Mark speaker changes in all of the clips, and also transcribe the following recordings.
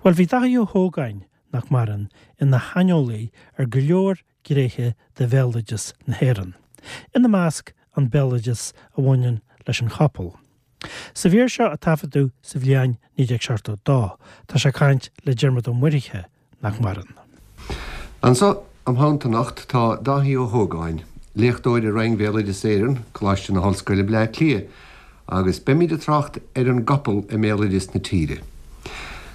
Speaker 1: Bhuel, bhí Dáithí Ó hÓgáin, nach maireann, ina shaineolaí ar go leor gnéithe de bhéaloideas na hÉireann, ina measc an béaloideas a bhaineann leis an chapall. Sa mhír seo a taifeadadh sa bhliain 1972, tá sé ag caint le Diarmuid Ó Muirthile, nach maireann.
Speaker 2: Anso im theannta anocht tá Dáithí Ó hÓgáin, léachtóir i Roinn Bhéaloideas Éireann, Coláiste na hOllscoile, Bleá Cliath, agus beimid ag trácht ar an gcapall i mbéaloideas na tíre.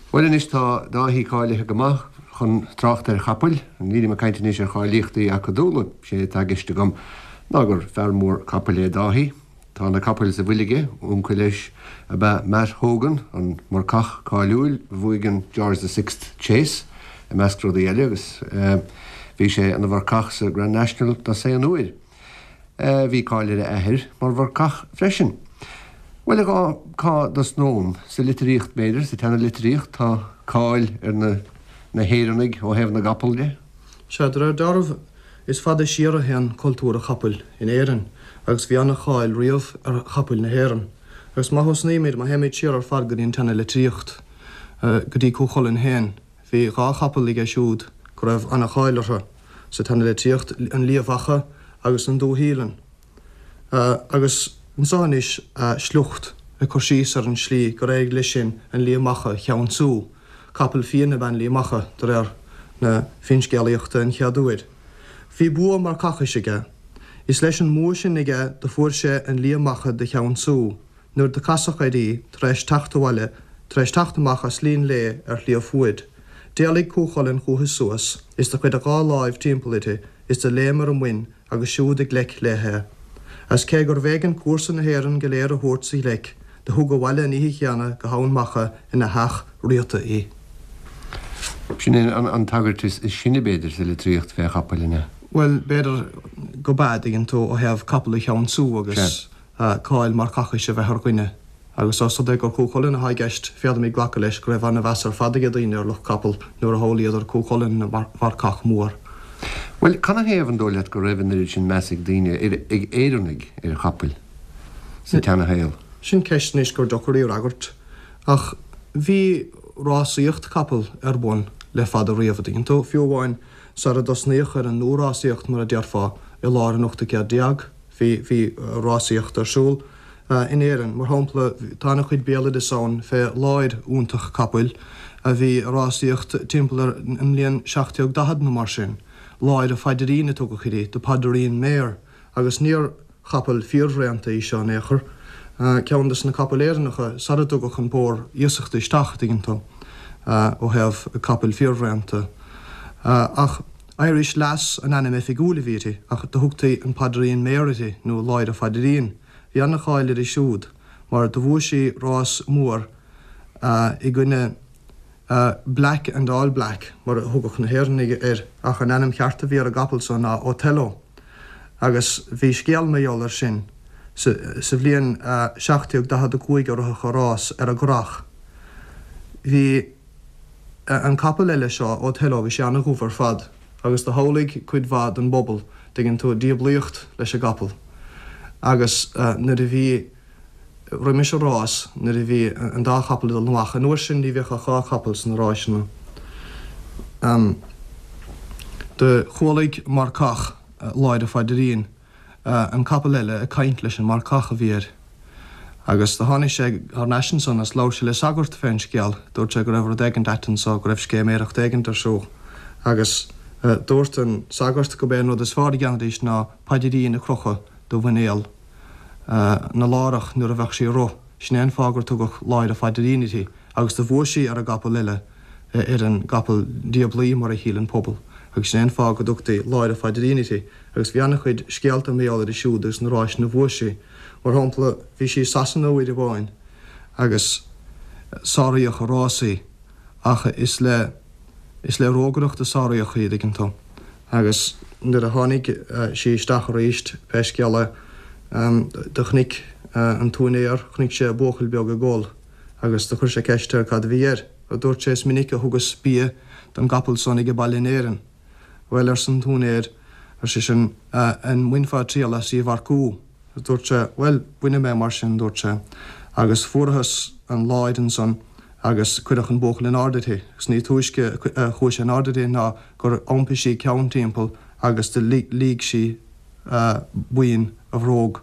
Speaker 2: Bhuel anois tá Dáithí cáilithe go maith chun trácht ar chapaill, nílim ag caint anois ar cháilíochtaí acadúla, sé atá i gceist agam ná gur fear mór capaill é Dáithí. Tá na capaill sa bhfuil aige, uncail leis ab ea Matt Hogan, an marcach cáiliúil a bhuaigh an George the Sixth Chase, i measc rudaí eile, agus bhí sé ina mharcach sa Grand National dosaen uair. Bhí cáil ar a athair mar mharcach freisin. Bhuel, a Dháithí, cá dtosnóm? Sa litríocht, b'fhéidir, sa tseana-litríocht, tá cáil ar na na hÉireannaigh ó thaobh na gcapall de.
Speaker 3: Sea, de réir dealraimh, Is fada siar a théann cultúr an chapaill in Éirinn agus bhí an-cháil riamh ar chapaill na hÉireann. Agus má thosnaímid, má théimid siar ar fad go dtí an tseana-litríocht, go dtí Cú Chulainn féin, bhí dhá chapall aige siúd go raibh an-cháil orthu sa tseana-litríocht, an Liath Mhacha agus an Dúshíleann. Agus anso anois sliocht ag cur síos ar an slí gur éirigh leis sin an Liath Macha a cheansú. Capall fiain ab ea an Liath Macha, de réir na finscéalaíochta, an chéad uair. Bhí bua marcachais aige. Is leis an mbua sin aige do fuair sé an Liath Macha do cheansú, nuair do casadh air í tar éis teacht abhaile, tar éis teacht amach as Linn Léith ar Shliabh Fuaid. D'éalaigh Cú Chulainn chúithi suas, is do chuir a dhá láimh timpeall uirthi, is do léim ar a muin agus siúd i gleic léi é. Agus cé gurbh éigean cúrsa na hÉireann go léir a thabhairt sa ghleic, do thug abhaile an oíche chéanna go hEamhain Mhacha ina theach riata
Speaker 2: í. Sin é an tagairt is sine, b'fhéidir, sa litríocht fé chapaill, an ea?
Speaker 3: Bhuel, b'fhéidir go b'ea, dtuigeann tú, ó thaobh capall a cheansú agus cáil marcachais a bheith ar dhuine. Agus ós rud é gur Cú Chulainn atá i gceist, féadfaimid glacadh leis go raibh an-mheas ar fad ag daoine ar lucht capall nuair a shamhlaíodar Cú Chulainn ina mharcach mór.
Speaker 2: Bhuel, canathaobh an dóigh leat go raibh an oiread sin meas ag daoine, ag Éireannaigh, ar chapaill sa tseanashaol?
Speaker 3: Sin ceist anois gur deacair í a fhreagairt. Ach bhí rásaíocht capall ar bun le fada riamh, a dtuigeann tú, fiú amháin sara dtosnaíodh ar an nua-rásaíocht, mar a déarfá, i lár an ochtú céad déag. Bhí, bhí rásaíocht ar siúl in Éirinn. Mar shampla, tá ana-chuid béaloideas ann fé láir iontach capaill a bhí ag rásaíocht timpeall ar an mbliain 1740 nó mar sin. Láir a' Phaidirín a tugadh uirthi, the Padereen Mare, agus níor chapall fíorthraonta í seo in aon chor. Ceann des na capaill Éireannacha sara dtugadh an pór iasachta isteach, a dtuigeann tú, ó thaobh capaill fíorthraonta. Ach. Irish Lass an ainm oifigiúil a bhí uirthi, ach do thugtaí an Padereen Mare uirthi, nó Láir a' Phaidirín. Bhí ana-cháil uirthi siúd, mar do bhuaigh sí rás mór i gcoinne Black and All Black, mar a thugadh na hÉireannaigh air, ach an ainm cheart a bhí ar an gcapall so ná Othello. Agus bhí scéal mar gheall air sin. Sa bhliain 1745 a ritheadh an rás ar an gCurrach. Bhí. An capall eile seo, Othello, bhí sé ana-dhubh ar fad agus do shamhlaigh cuid mhaith den bpobal, dtuigeann tú, diablaíocht leis an gcapall. Agus nuair a bhí, roimis an rás, nuair a bhí an dá chapall ag dul amach, an uair sin ní bhíodh ach dhá chapall sna ráiseanna, do chualaigh marcach Láir a' Phaidirín, an capall eile ag caint leis an marcach a bhí air. Agus do tháinig sé thar n-ais ansan agus labhair sé le sagart fén scéal. Dúirt sé go raibh rud éigint ait anso, go raibh scéiméireacht éigint ar siúl. Agus dúirt an sagart go b'é an rud is fearr a dhéanfaidís ná paidirín a crochadh do mhuinéal na lárach nuair a bheadh sí ag rith. Sin é an fáth gur tugadh Láir a' Phaidirín uirthi. Agus do bhuaigh sí ar an gcapall eile, ar an gcapall diablaí mar a shíl an pobal. Agus sin é an fáth go dtugtaí Láir a' Phaidirín uirthi. Agus bhí ana-chuid scéalta mar gheall uirthi siúd agus na ráiseanna a bhuaigh sí. Mar shampla, bhí sí i Sasana uair amháin agus sáraíodh i rás í, ach is le, is le rógaireacht a sáraíodh í, dtuigeann tú. Agus nuair a tháinig sí isteach arís, pé scéal é, do chonaic an t-úinéir, chonaic sé buachaill beag ag gol agus do chuir sé ceist air cad a bhí air. Dúirt sé, is minic a thugas bia don gcapall san age baile in Éirinn. Bhuel, arsa an t-úinéir, ar seisean, an mbainfeá triail as í a mharcú? Dúirt sé, Bhuel, bainfidh mé mar sin, dúirt sé. Agus fuarathas an láir ansan. Agus cuireadh an buachaill in airde uirthi, agus ní túisce a chuaigh sé in airde uirthi ná gur iompaigh sí a ceann timpeall agus do liúigh sí boinn a bhróg.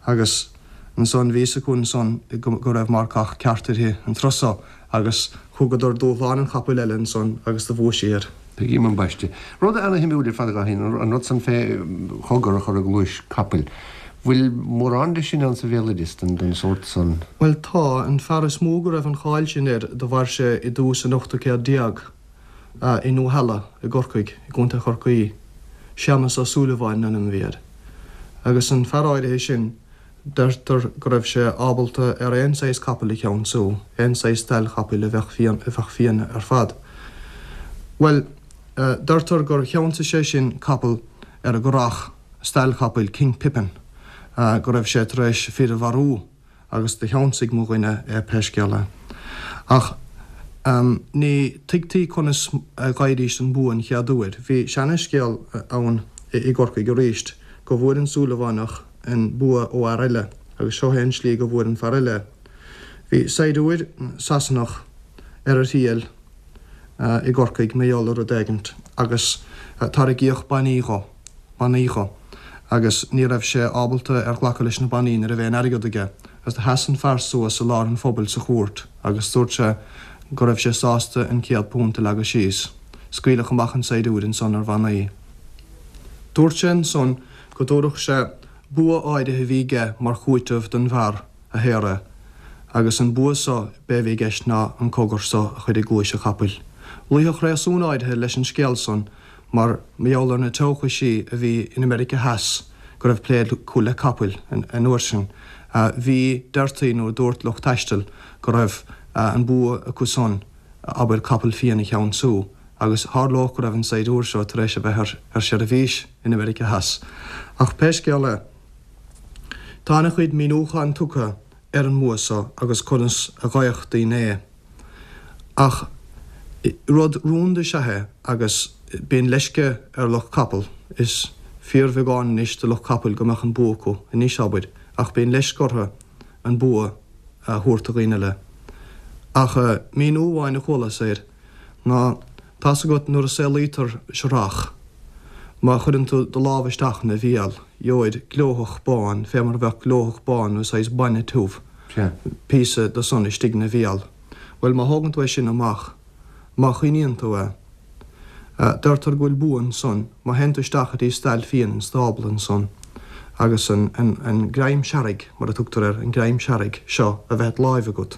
Speaker 3: Agus ansan bhí fhios acu ansan go raibh marcach ceart uirthi an turas so, agus thugadar dúshlán an chapaill eile ansan agus do bhuaigh sí air.
Speaker 2: Tuigim ambaiste. Rud ana-shuimiúil ar fad, a Dháithí, an rud san fé chogar a chur i gcluais capaill. Bhfuil mórán de sin ann sa bhéaloideas den sórt san?
Speaker 3: Bhuel tá. An fear is mó go raibh an cháil sin air do mhair sé i dtús an ochtú céad déag i nDumhaill i gCorcaigh, i gContae Chorcaí. Séamas Ó Súilleabháin an ainm a bhí air. Agus an fear áirithe sin, deirtear go raibh sé ábalta ar aon saghas capaill a cheansú, aon saghas stail chapaill a bheadh fiain, a bheadh fiain ar fad. Bhuel, deirtear gur cheansaigh sé sin capall ar an gCurrach, stail chapaill King Pippin, go raibh sé tar éis fir a mharú agus do cheansaigh mo dhuine é pé scéal é. Ach ní tuigtí conas a dh'fhaighidís an bua an chéad uair. Bhí seana-scéal ann i gCorcaigh aríst go bhfuair an Súilleabhánach an bua ó fhear eile agus seo é an slí go bhfuair an fear eile é. Bhí saighdiúir Sasanach ar a thriail i gCorcaigh mar gheall ar rud éigint agus tairgíodh bannaí dho. bannaí dho agus ní raibh sé ábalta ar ghlacadh leis na bannaí ní raibh aon airgead aige agus do sheas an fear suas i lár an phobail sa chúirt agus dúirt sé go raibh sé sásta an £100 a leagadh síos. Scaoileadh amach an saighdiúir ansan ar bhannaí. Dúirt sé ansan go dtabharfadh sé bua áirithe a bhí aige mar chúiteamh don bhfear a shaor é agus an bua so b'é a bhí i gceist ná an cogar so a chur i gcluais an chapaill. Luífeadh réasún áirithe leis an scéal san Mar gheall ar na teochaisí a bhí in America Theas go raibh plé acu le capaill an uair sin. Bhí, deirtí nó dúirt lucht taistil go raibh an bua acu san, abair, capall fiain a cheansú agus tharlódh go raibh an saighdiúir seo tar éis a bheith ar seirbhís in America Theas. Ach pé scéal é, tá ana-chuid míniúchán tugtha ar an mbua so agus conas a gheibheadh daoine é. Ach rud rúnda is ea é agus bíonn leisce ar lucht capall, is fíorbheagán anois de lucht capaill go mbeadh an bua acu anois, abair, ach bíonn leisce orthu an bua a thabhairt do dhaoine eile. Ach míniú amháin a chualas air ná, tá's agat nuair a saolaítear searrach, má chuireann tú do lámh isteach ina bhéal, gheobhair glóthach bán, fé mar a bheadh glóthach bán nó saghas bainne tiubh. píosa de san istigh 'na bhéal. Bhuel, má thógann tú é sin amach, má choinníonn tú é, deirtear go bhfuil bua ansan, má théann tú isteach go dtí stail fiann an stábla ansan agus an, an, an greim searraigh, mar a tugtar air, an greim searraigh seo a bheith id láimh agat,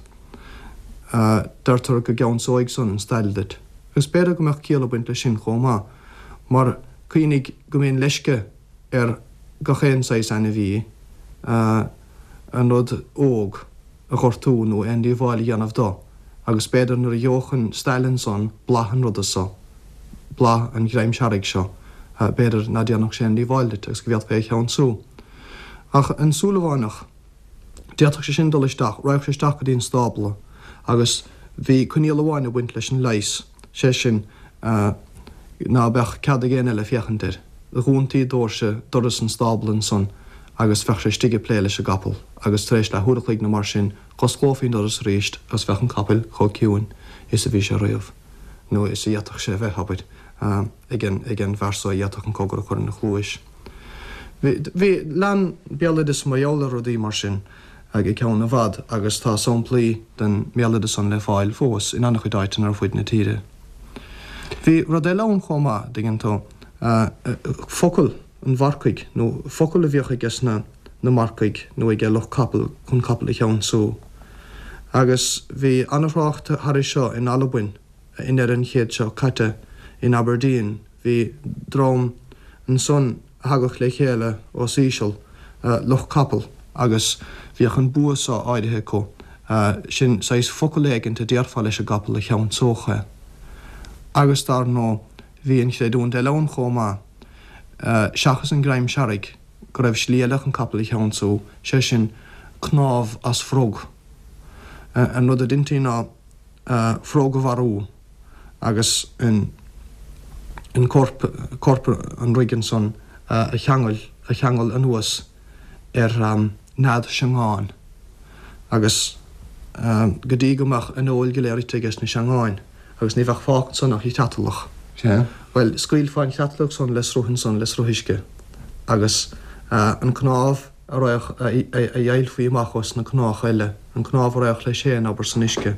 Speaker 3: deirtear go gceansóidh san an stail duit. Agus b'fhéidir go mbeadh ciall ag baint leis sin chomh maith, mar cuimhnigh go mbíonn leisce ar gach aon saghas ainmhí an rud óg a ghortú nó aon díobháil a dhéanamh do, agus b'fhéidir nuair a gheobhadh an stail ansan blas an ruda so, blas an ghreim searraigh seo, b'fhéidir ná déanfadh sé aon díobháil duit agus go bhféadfaí é a cheansú. Ach an Súilleabhánach. D'fhéadfadh sé sin dul isteach, raghadh sé isteach go dtí an stábla agus bhí coinníoll amháin ag baint leis an leigheas, sé sin, ná beadh cead ag éinne eile féachaint air. Dhúntaí dóirse, doras an stábla ansan agus bheadh sé istigh ag plé leis an gcapall agus tar éis leath uair a chloig nó mar sin, dh'osclófaí an doras arís agus bheadh an capall chomh ciúin is a bhí sé riamh, nó is a d'fhéadfadh sé a bheith, abair, ag an, ag an bhfear so a d'fhéadfadh an cogar a chur ina chluais. Bhí, lean béaloideas mar gheall ar rudaí mar sin go ceann i bhfad agus tá samplaí den mbéaloideas san le fáil fós in an-chuid áiteanna ar fuid na tíre. Bhí rud eile ann chomh maith, dtuigeann tú, focal an mharcaigh nó focal a bhíodh aige sna na marcaigh nó aige lucht capall chun capall a cheansú. Agus bhí an-thrácht thairis seo in Albain. I ndeireadh an chéid seo caite in Aberdeen bhí dream ansan a thagadh le chéile os íseal, lucht capall, agus bhíodh an bua so áirithe acu, sin saghas focal éigint a déarfá leis an gcapall a cheansódh é. Agus dar ndóigh bhí an chreidiúint eile ann chomh maith, seachas an greim searraigh, go raibh slí eile chun capall a cheansú, sé sin cnámh as frog. An rud a deintí ná. frog a mharú agus an corp, corp an fhroig ansan a cheangal, a cheangal anuas ar nead seangáin agus. go dtí go mbeadh an fheoil go léir ite aige sna seangáin agus ní bheadh fágtha ansan ach an chreatalach.
Speaker 2: Sea.
Speaker 3: Bhuel, scaoilfeá an chreatalach san le sruth ansan, le sruth uisce agus an cnámh a raghadh, a dheighilfí amach os na cnámha eile, an cnámh a raghadh leis féin, abair, san uisce,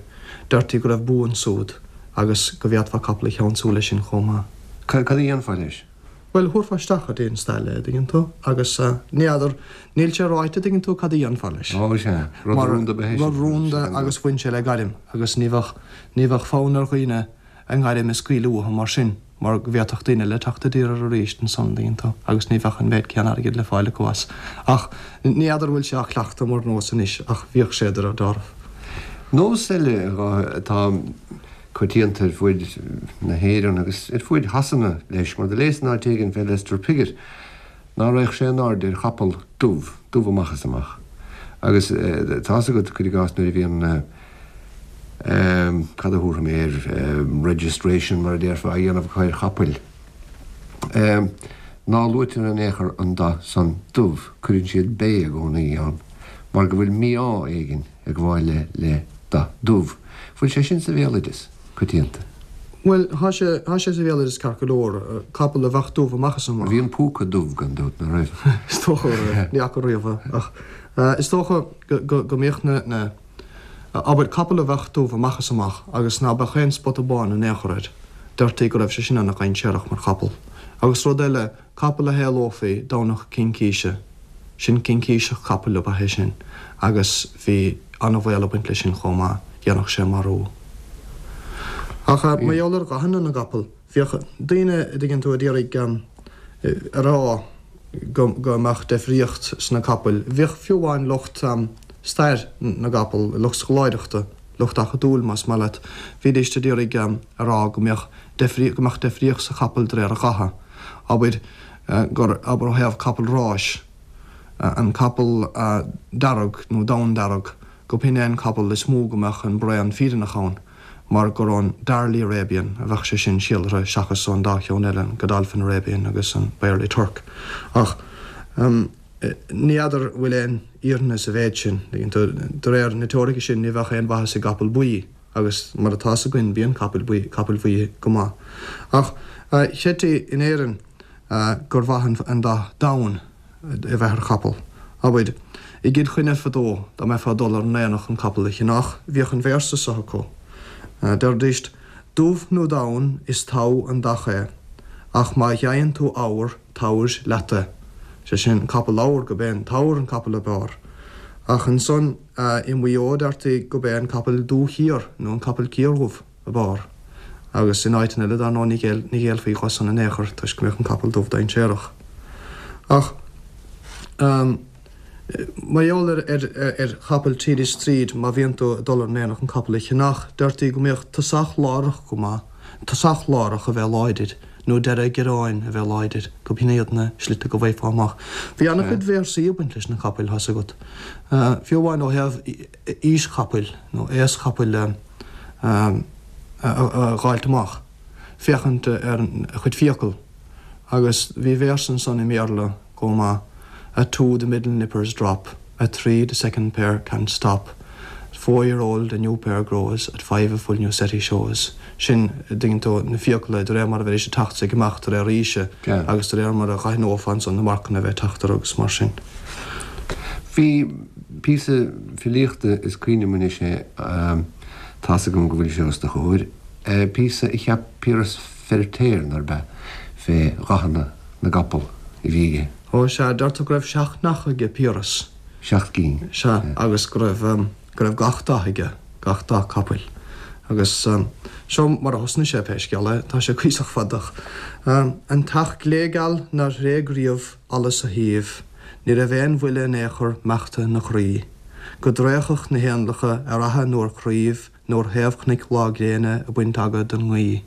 Speaker 3: deirtí go raibh bua ansúd agus go bhféadfá capall a cheansú leis sin chomh maith.
Speaker 2: Cad a dhéanfá leis?
Speaker 3: Bhuel, thabharfá isteach go dtí an stail é, a dtuigeann tú, agus ní fheadar, níl sé ráite, a dtuigeann tú, cad a dhéanfá leis.
Speaker 2: Ó, sea, rud rúnda ab ea é sin.
Speaker 3: Rud rúnda agus bhain sé le gairm agus ní bheadh, ní bheadh fonn ar dhaoine a ngairm a scaoileadh uathu mar sin mar go bhféadfadh daoine eile teacht i dtír air arís ansan, a dtuigeann tú, agus ní bheadh an méid céanna airgid le fáil acu as. Ach ní fheadar bhfuil sé á chleachtadh mar nós anois ach bhíodh sé de réir dealraimh.
Speaker 2: Nós eile atá. coitianta ar fuaid na hÉireann agus ar fuaid Shasana leis, mar do léas in áit éigin fé Lester Piggott ná raghadh sé in airde ar chapall dubh, dubh amach is amach. Agus tá's agat, cuir i gcás, nuair a bhíonn cad a thabharfaidh mé air, registration mar a déarfá, á dhéanamh acu ar chapaill, ná luaitear in aon chor an dath san dubh, cuireann siad bay i gcónaí ann, mar go bhfuil mí-ádh éigin. ag gabháil le le dath dubh. Bhfuil sé sin sa bhéaloideas coitianta?
Speaker 3: Bhuel, thá sé, thá sé sa bhéaloideas ceart go leor, capall a bheadh dubh amach is amach.
Speaker 2: Bhí an púca dubh gan dabht, ná raibh?
Speaker 3: Is dócha go raibh, ní fhaca riamh é, ach is dócha go, go, go mbíodh na, na, abair, capall a bheadh dubh amach is amach agus ná beadh aon spota bán in aon chor air, deirtí go raibh sé sin ana-dhainséarach mar chapall. Agus rud eile, Capall a shaolófaí Domhnach Cincíse, sin cincíseach capaill ab ea é sin agus bhí an-bhaol ag baint leis sin chomh maith, dhéanfadh sé marú. Ach mar gheall ar dhathanna na gcapall, bhíodh daoine, a dtuigeann tú, a d'iarraidh a rá go mbeadh deifríocht sna capaill. Bhíodh fiú amháin lucht stair na gcapall, lucht scoláireachta, lucht acadúil más maith leat, bhídíst a d'iarraidh a rá go mbeadh go mbeadh deifríocht sa chapall de réir a dhatha. Abair gur, abair ó thaobh capall ráis, an capall dearg nó donn-dearg, gurb shin é an capall is mó go mbeadh an braon fírinneach ann, mar gur ón Darley Arabian a bheadh sé sin síolraithe seachas ón dá cheann eile, an Godolphin Arabian agus an Byerley Turk. Ach ní fheadar bhfuil aon fhírinne sa mhéid sin. De réir na teoirice sin ní bheadh aon mhaitheas i gcapall buí. Agus mar atá 's againn bíonn capaill buí, capaill bhuí go maith. Ach chreidtí in Éirinn gur mhaith an dath donn a bheith ar chapall. Abair, i gCill Chainnigh fadó, dá mbeifeá ag dul ar an aonach chun capall a cheannach, bhíodh an véarsa seo acu. Deiridíst, Dubh nó donn is togha an dath é, ach má gheibheann tú eabhar, tabhair leat é. Sé sin, capall eabhar, gurb é an t-eabhar an capall ab fhearr. Ach ansan, I Maigh Eo deirtí gurb é an capall dúchiar nó an capall ciardhubh ab fhearr agus in áiteanna eile dar ndóigh ní ghéillfí dhó san in aon chor toisc go mbeadh an capall dubh dainséarach. Ach mar gheall ar chapaill tríd is tríd má bhíonn tú ag dul ar an aonach an capall a cheannach deirtí go mbeadh tosach lárach go maith, tosach lárach a bheith láidir. nó deireadh giorráin a bheith láidir, gurb shin iad na slite go bhfaighfeá amach. Bhí an-chuid véarsaí ag baint leis na capaill, tá's agat. Fiú amháin ó thaobh aois chapaill nó aos chapaill a dh'fháilt amach, féachaint ar a chuid fiacal. Agus bhí véarsa ansan i mBéarla chomh maith, At two the middle nippers drop, at three the second pair can't stop, at four year old a new pair grows, at five a full new set he shows. Sin, a dtuigeann tú, na fiacla de réir mar a bheidís ag teacht is ag imeacht de réir aoise agus de réir mar a dh'aithneofá ansan na marcanna a bheith ag teacht orthu agus mar sin.
Speaker 2: Bhí píosa filíochta, is cuimhin liom anois é, tá's agam go bhfuil sé os do chomhair, píosa a cheap Piaras Feiritéar, nárb ea, fé dhathanna na gcapall a bhí aige.
Speaker 3: Ó, sea, deirtear go raibh seacht n-each aige Piaras.
Speaker 2: Seacht gcinn.
Speaker 3: Sea, agus go raibh, go raibh gach dath aige, gach dath capaill. Agus seo mar a thosnaigh sé, pé scéal é, tá sé cuíosach fada ach, An t-each gléigeal nár thréig riamh allas a thaoibh, ní raibh aon bhuille in aon chor meachta 'na chroí. Go dtraochfadh na héanlacha ar fhaiche nó ar chraoibh, nó ar thaobh chnoic lá gréine ag baint aga don ngaoith.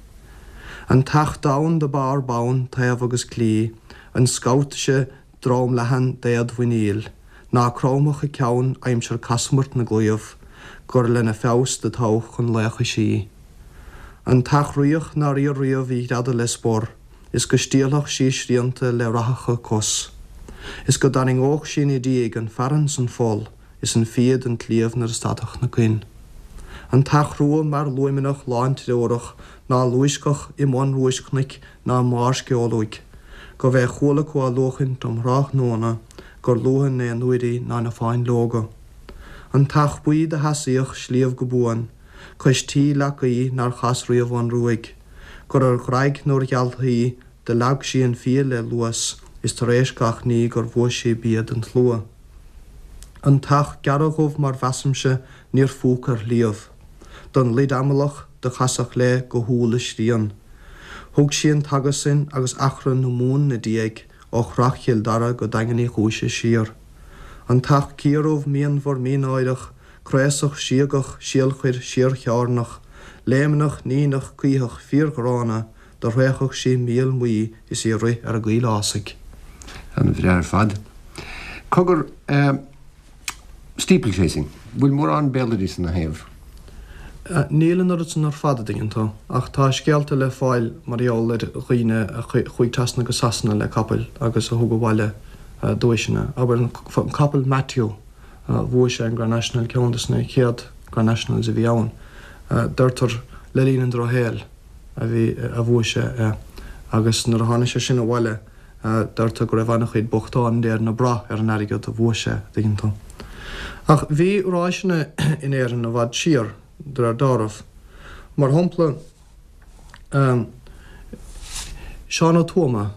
Speaker 3: An t-each donn do b'fhearr bonn taobh agus clí, an scabhtaise drom leathan d'éad mhuiníl, ná cromfadh a ceann aimsir casamairt na gclaíomh, gur lena feabhas do toghadh chun laochais í. An t-each riach nár iarr riamh í ghreadadh le spor, is go stiallfadh sí srianta le rathacha cos, is go dtarraingeodh sí ina diaidh an fearann 's an pholl, is an fia den tsliabh nuair a stadfadh na coin. An t-each rua mear luaimneach lántreorach ná luaisceadh i mbun roischnoic ná i mbarr sceol uaidh, gurbh é chuala acu á luachaint um thráthnóna gur luaithe in aon uair í ná na fáinleoga. An t-each buí do sheasaíodh sliabh go buan, cois tí leac aoi nár chas riamh ón ruaig, gur ar dhraig nó ar ghealthaí do leag sí an fia le luas is tar éis gach ní gur bhuaigh sí bia don tslua. An t-each gearra-dhubh mar mheasaimse níor phúc ar shliabh. Don luid amalach do casadh léi go humhal a srian. Thug sí an t-aga san agus achrann na Mumhan 'na diaidh ó Shrath Chill Dara go Daingean Uí Chúise siar. An t-each ciardhubh mianmhar mínáireach craosach síogach síolchuir síorchearnach léimneach níneach caothach fíorghránna do thraochfadh sí míol maí is í ag rith ar an gcoill fhásaigh.
Speaker 2: An-bhreá ar fad. Cogar, eh, steeplechasing, bhfuil mórán béaloidis ina thaobh?
Speaker 3: Níl an oiread san ar fad, a dtuigeann tú, ach tá scéalta le fáil mar gheall ar dhaoine a chuaigh trasna go Sasana le capaill agus a thug abhaile duaiseanna. Abair an capall Matthew, bhuaigh sé an Grand National, ceann de na chéad Grand Nationals a bhí ann, deirtear le linn an drochshaoil. a bhí, a bhuaigh sé é agus nuair a tháinig sé sin abhaile deirtear go raibh an-chuid bochtán in Éirinn ag brath ar an airgead a bhuaigh sé, a dtuigeann tú. Ach bhí ráiseanna in Éirinn i bhfad siar, de réir dealraimh. Mar shampla, Seán Ó Tuama,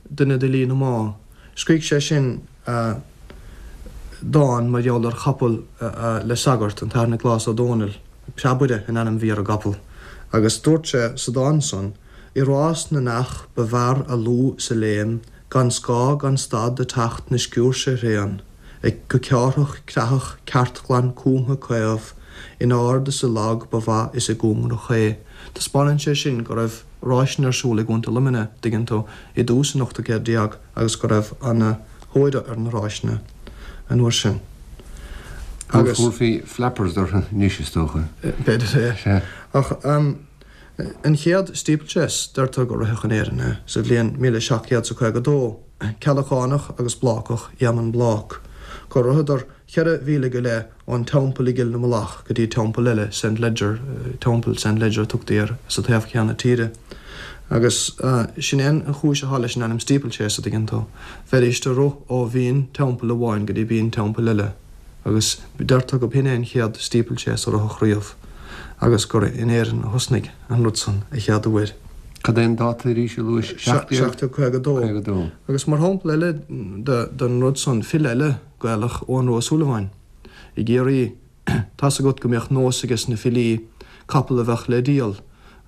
Speaker 3: duine d'fhilí na Mná, scrígh sé sin dán mar gheall ar chapall le sagart, an tAthair Nioclás Ó Dónaill. Preabaire an ainm bhí ar an gcapall, agus dúirt sé sa dán san, I rás na n-each ba bhfearr a lúth 's a léim, gan scáth gan stad ag teacht 'na sciúirse thréan, ag go ceárthach creathach ceartghlan cúmtha caomh, in ard is i lag ba mhaith is i gcóngarach é. Taispeánann sé sin go raibh ráiseanna ar siúl i gContae Luimnigh, dtuigeann tú, i dtús an ochtú céad déag agus go raibh ana thóir ar na ráiseanna an uair sin.
Speaker 2: Agus. Thabharfaí flappers orthu anois, is dócha.
Speaker 3: B'fhéidir é. Sea. Ach an chéad steeplechase, deirtear gur ritheadh in Éirinn é sa bhliain 1752, Ceallachánach agus Blácach, Éamonn Blác, gur ritheadar cheithre mhíle go leith ón teampall i gCill na Mullach go dtí teampall eile, Saint Leger, Teampall Saint Leger a tugtaí air, sa taobh céanna tíre. Agus sin é an chúis atá leis an ainm steeplechase, a dtuigeann tú. Bheidís ag rith ó bhinn teampaill amháin go dtí binn teampaill eile. Agus deirtear go b'shin é an chéad steeplechase a ritheadh riamh agus gur in Éirinn a thosnaigh an rud san a chéad uair.
Speaker 2: Cad é an dáta arís a luais?
Speaker 3: 1752.
Speaker 2: 52.
Speaker 3: Agus mar shampla eile den rud san, file eile Gaelach, Eoghan Rua Ó Súilleabháin, i gCiarraí, tá's agat go mbíodh nós ages na filí capall a bheadh le díol,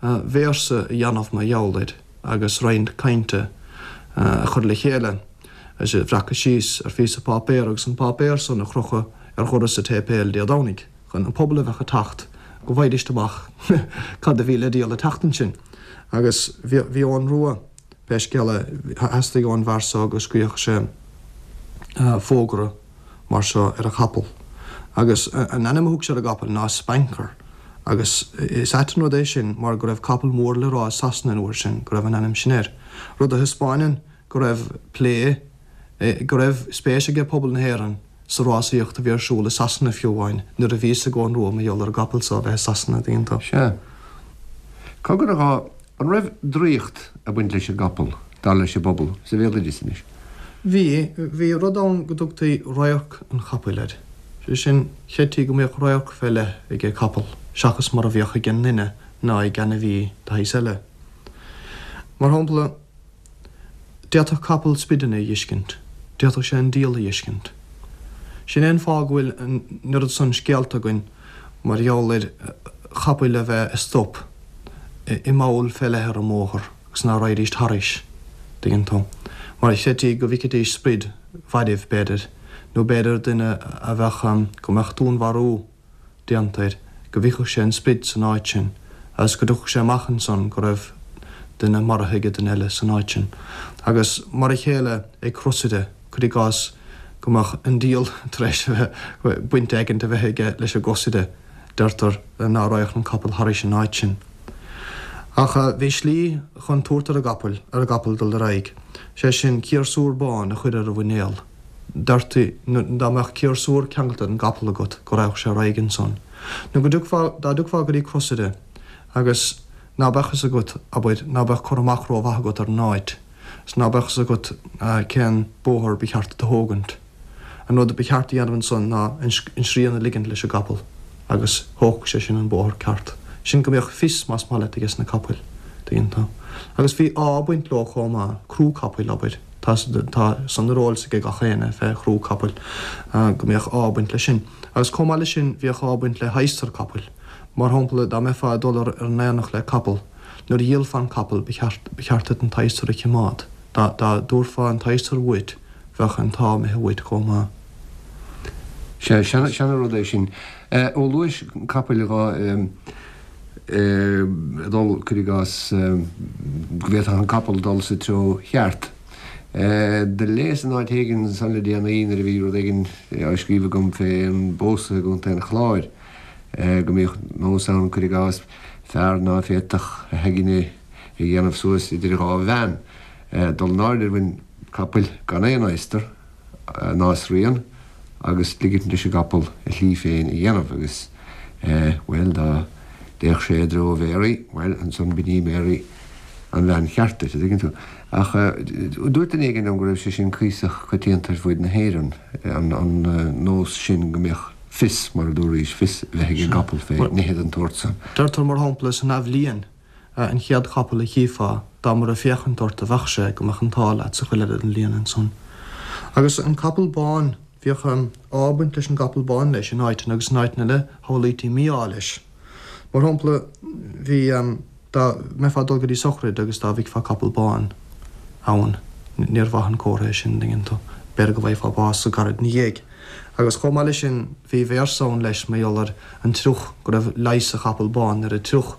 Speaker 3: véarsa a dhéanamh mar gheall air agus roinnt cainte a chur le chéile agus a bhreacadh síos ar phíosa páipéir agus an páipéar san a chrochadh ar dhoras an tséipéil Dé Domhnaigh chun an pobal a bheadh ag teacht go bhfaighidíst amach cad a bhí le díol an tseachtain sin. Agus bhí Eoghan Rua, pé scéal é, theastaigh ón bhfear so go scríobhadh sé fógra mar seo ar a chapall. Agus an ainm a thug sé ar an gcapall ná Spanker. Agus is ait an rud é sin mar go raibh capall mór le rá i Sasana an uair sin go raibh an ainm sin air. Rud a thaispeáineann go raibh plé, go raibh spéis aige pobal na hÉireann sa rásaíocht a bhí ar siúl i Sasana fiú amháin nuair a bhí fhios ag Eoghan Rua mar gheall ar an gcapall so a bheith i Sasana, an dtuigeann tú.
Speaker 2: Sea. Cogar a dhá An raibh draíocht ag baint leis an gcapall, dar leis an bpobal, sa bhéaloideas anois?
Speaker 3: Bhí. Bhí rud ann go dtugtaí radharc an chapaill air. Sé sin, chreidtí go mbíodh radharc fé leith ag an gcapall seachas mar a bhíodh ag an nduine ná ag ainmhí de shaghas eile. Mar shampla, D'fhéadfadh capall sprideanna a dh'fheiscint. D'fhéadfadh sé an diabhal a dh'fheiscint. Sin é an fáth go bhfuil an oiread san scéalta againn mar gheall ar chapaill a bheith ag stop i mball fé leith ar an mbóthar agus ná raghaidís thairis, dtuigeann tú, mar chreidtí go bhficfidís sprid mhairbh, b'fhéidir, nó b'fhéidir duine a bheadh, go mbeadh dúnmharú. déanta air, go bhficfeadh sé an sprid san áit sin agus go dtiocfadh sé amach ansan go raibh duine maraithe ag duine eile san áit sin. Agus mar a chéile ag crosaire, cuir i gcás, go mbeadh an diabhal tar éis a bheith, baint éigint a bheith aige leis an gcrosaire, deirtear ná raghadh an capall thairis an áit sin. Ach bhí slí chun tabhairt ar an gcapaill, ar an gcapall dul ar aghaidh, sé sin ciarsúr bán a chur ar a mhuinéal. Deirtí, dá mbeadh ciarsúr ceangailte ar an gcapall agat, go raghadh sé ar aghaidh ansan. Nó go dtiocfá, dá dtiocfá go dtí crosaire agus ná beadh fhios agat, abair, ná beadh cur amach rómhaith agat ar an áit, 's ná beadh fhios agat cén bóthar ba cheart duit a thógaint. An rud ba cheart a dhéanamh ansan ná an srian a ligint leis an gcapall agus thógfadh sé sin an bóthar ceart. Sin go mbeadh fios, más maith leat, ages na capaill, tuigeann tú. Agus bhí ádh ag baint leo chomh maith, crú capaill, abair. Tá tá san ar eolas ag gach éinne fé chrú capaill, go mbíodh ádh ag baint leis sin. Agus chomh maith leis sin bhíodh ádh ag baint le hadhsar capaill. Mar shampla, dá mbeifeá ag dul ar an aonach le capall, nuair a dhíolfá an capall ba cheart ba cheart duit an t-adhsar a chimeád. Dá dá dtabharfá an t-adhsar uait bheadh an t-ádh imithe uait chomh maith.
Speaker 2: Sea, seana seana rud é sin. Ó luais capaill dhá dul, cuir i gcás, go bhféadfadh an capall dul sa treo cheart. Do léas in áit éigin ansan le déanaí nuair a bhí rud éigin á scríobh agam fé an bpósadh i gContae an Chláir, go mbíodh nós ann, cuir i gcás, fear ná féadfadh a aigne a dhéanamh suas idir dhá bhean, dul in airde ar mhuin capaill gan aon adhastar, ná srian agus ligint leis an gcapall a shlí féin a dhéanamh agus, bhuel, dá dtéadh sé i dtreo Mhary, bhuel, ansan b'in í Mary an bhean cheart duit, a' dtuigeann tú. Ach dúirt duine éigin liom go raibh sé sin cuíosach coitianta ar fuaid na hÉireann, an nós sin go mbeadh fios, mar a dúraís, fios a bheith ag an gcapall fé nithe den tsórt san.
Speaker 3: Deirtear, mar shampla, san athbhliain, an chéad chapall a chífeá, dá mba ag féachaint ort a bheadh sé, go mbeadh an t-ádh leat sa chuid eile den bhliain ansan. Agus an capall bán, bhíodh ádh ag baint leis an gcapall bán leis in áiteanna agus in áiteanna eile shamhlaítí mí-ádh leis. Mar shampla, bhí, dá mbeifeá ag dul go dtí sochraid agus dá bhfeicfeá capall bán ann, níor mhaith an comhartha é sin, an dtuigeann tú, b'fhéidir go bhfaighfeá bás go gairid ina dhiaidh. Agus chomh maith leis sin, bhí véarsa ann leis mar gheall ar an triuch, go raibh leigheas sa chapall bán ar an triuch.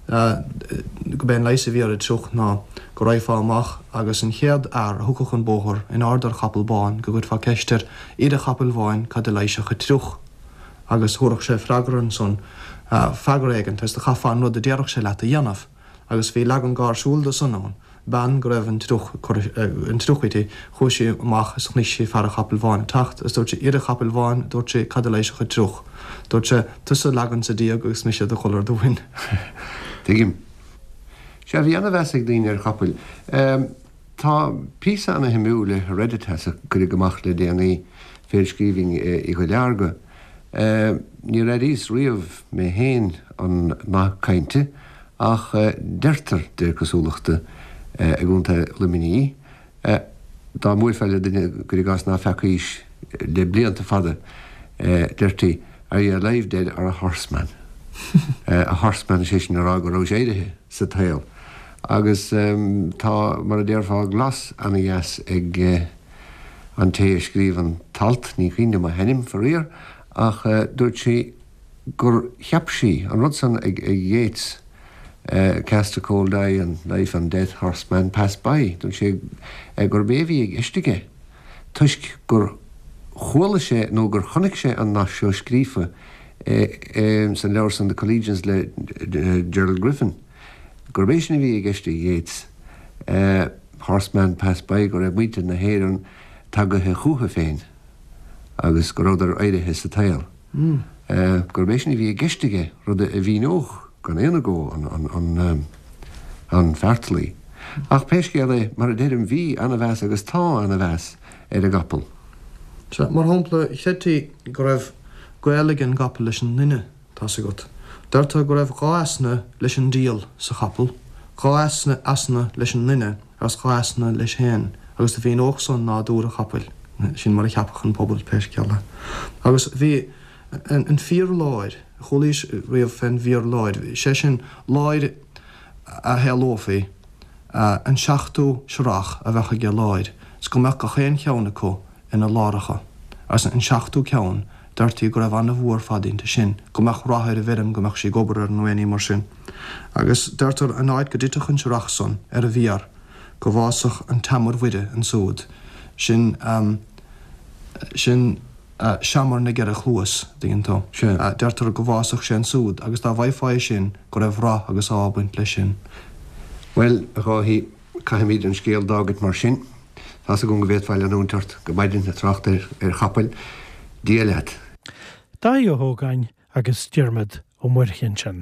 Speaker 3: Go b'é an leigheas a bhí ar an triuch ná go raghfá amach agus an chéad fhear a thiocfadh an bóthar in airde ar chapall bán go gcuirfeá ceist air, A fhir an chapaill bháin, cad a leigheasfadh an triuch? Agus thabharfadh sé freagra ansan, freagra éigint, agus do chaithfeá an rud a déarfadh sé leat a dhéanamh. Agus bhí leagan gáirsiúil de san ann, bean go raibh an triuch ag cur an triuch uirthi, chuaigh sí amach is chonaic sí fear an chapaill bháin ag teacht is dúirt sí, A fhir an chapaill bháin, dúirt sí, cad a leigheasfadh an triuch? Dúirt sé, Tusa a leagan sa díog agus mise do dhul ar do mhuin.
Speaker 2: Tuigim. Sea, bhí ana-mheas ag daoine ar chapaill. Tá píosa ana-shuimiúil i Hereditas a cuireadh amach le déanaí fé scríbhinn Uí Dhuilearga. Níor airíos riamh mé féin an nath cainte ach deirtear, de réir cosúlachta, i gContae Luimnigh, dá mbuailfeá le duine, cuir i gcás, ná feacaís le blianta fada, deirtí, Are you alive, dead or a horseman? A horseman, is é sin a rá go rabhais éirithe sa tsaol. Agus tá, mar a déarfá, glas ana-dheas ag an té a scríobh an t-alt, ní cuimhin liom a hainm, faraor, ach dúirt sí gur cheap sí an rud san ag Yeats, Cast a cold eye on life and death, horseman pass by, dúirt sé gurb é a bhí i gceist aige toisc gur chuala sé nó gur chonaic sé an nath seo scríofa san leabhar san The Collegians le Gerald Griffin. Gurb é sin a bhí i gceist ag Yeats, horseman pass by, go raibh muintir na hÉireann tagaithe chúthu féin agus go rabhadar éirithe sa tsaol. Gurb é sin a bhí i gceist aige, rud a mhíneodh gan aon agó an feartlaoi. Ach pé scéal é, mar a deirim, bhí ana-mheas agus tá ana-mheas ar an gcapall.
Speaker 3: Sea, mar shampla, chreidtí go raibh gaol ag an gcapall leis an nduine. Tá's agat. Deirtear go raibh dha easna leis an diabhal sa chapall, dha easna easna leis an nduine agus dha easna leis féin, agus do mhíneodh san nádúr an chapaill. Sin mar a cheapadh an pobal, pé scéal é. Agus bhí an fíor láir, chualaís riamh fén bhfíor láir, sé sin, láir a shamhlófaí, an seachtú searrach a bheadh aige láir, 's go mbeadh gach aon cheann acu ina láracha, agus an seachtú ceann, deirtí go raibh ana-bhua ar fad inti sin, go mbeadh rath ar an bhfeirm, go mbeadh sí ag obair air nó aon ní mar sin. Agus deirtear an áit go dtitfeadh an searrach san ar an bhfíor, go bhfásfadh an tseamair Mhuire ansúd, sin, sin seamar na gceithre chluas, dtuigeann tú. Deirtear go bhfásfadh sé ansúd agus dá bhfaighfeá é sin, go raibh rath agus ádh ag baint leis sin.
Speaker 2: Bhuel, a Dháithí, Caithfimid an scéal d'fhágaint mar sin. Tá's agam go bhféadfá leanúint ort go maidin ag trácht ar chapaill. Dia leat.
Speaker 1: Dáithí Ó hÓgáin. agus Diarmaid Ó Muirthile ansin.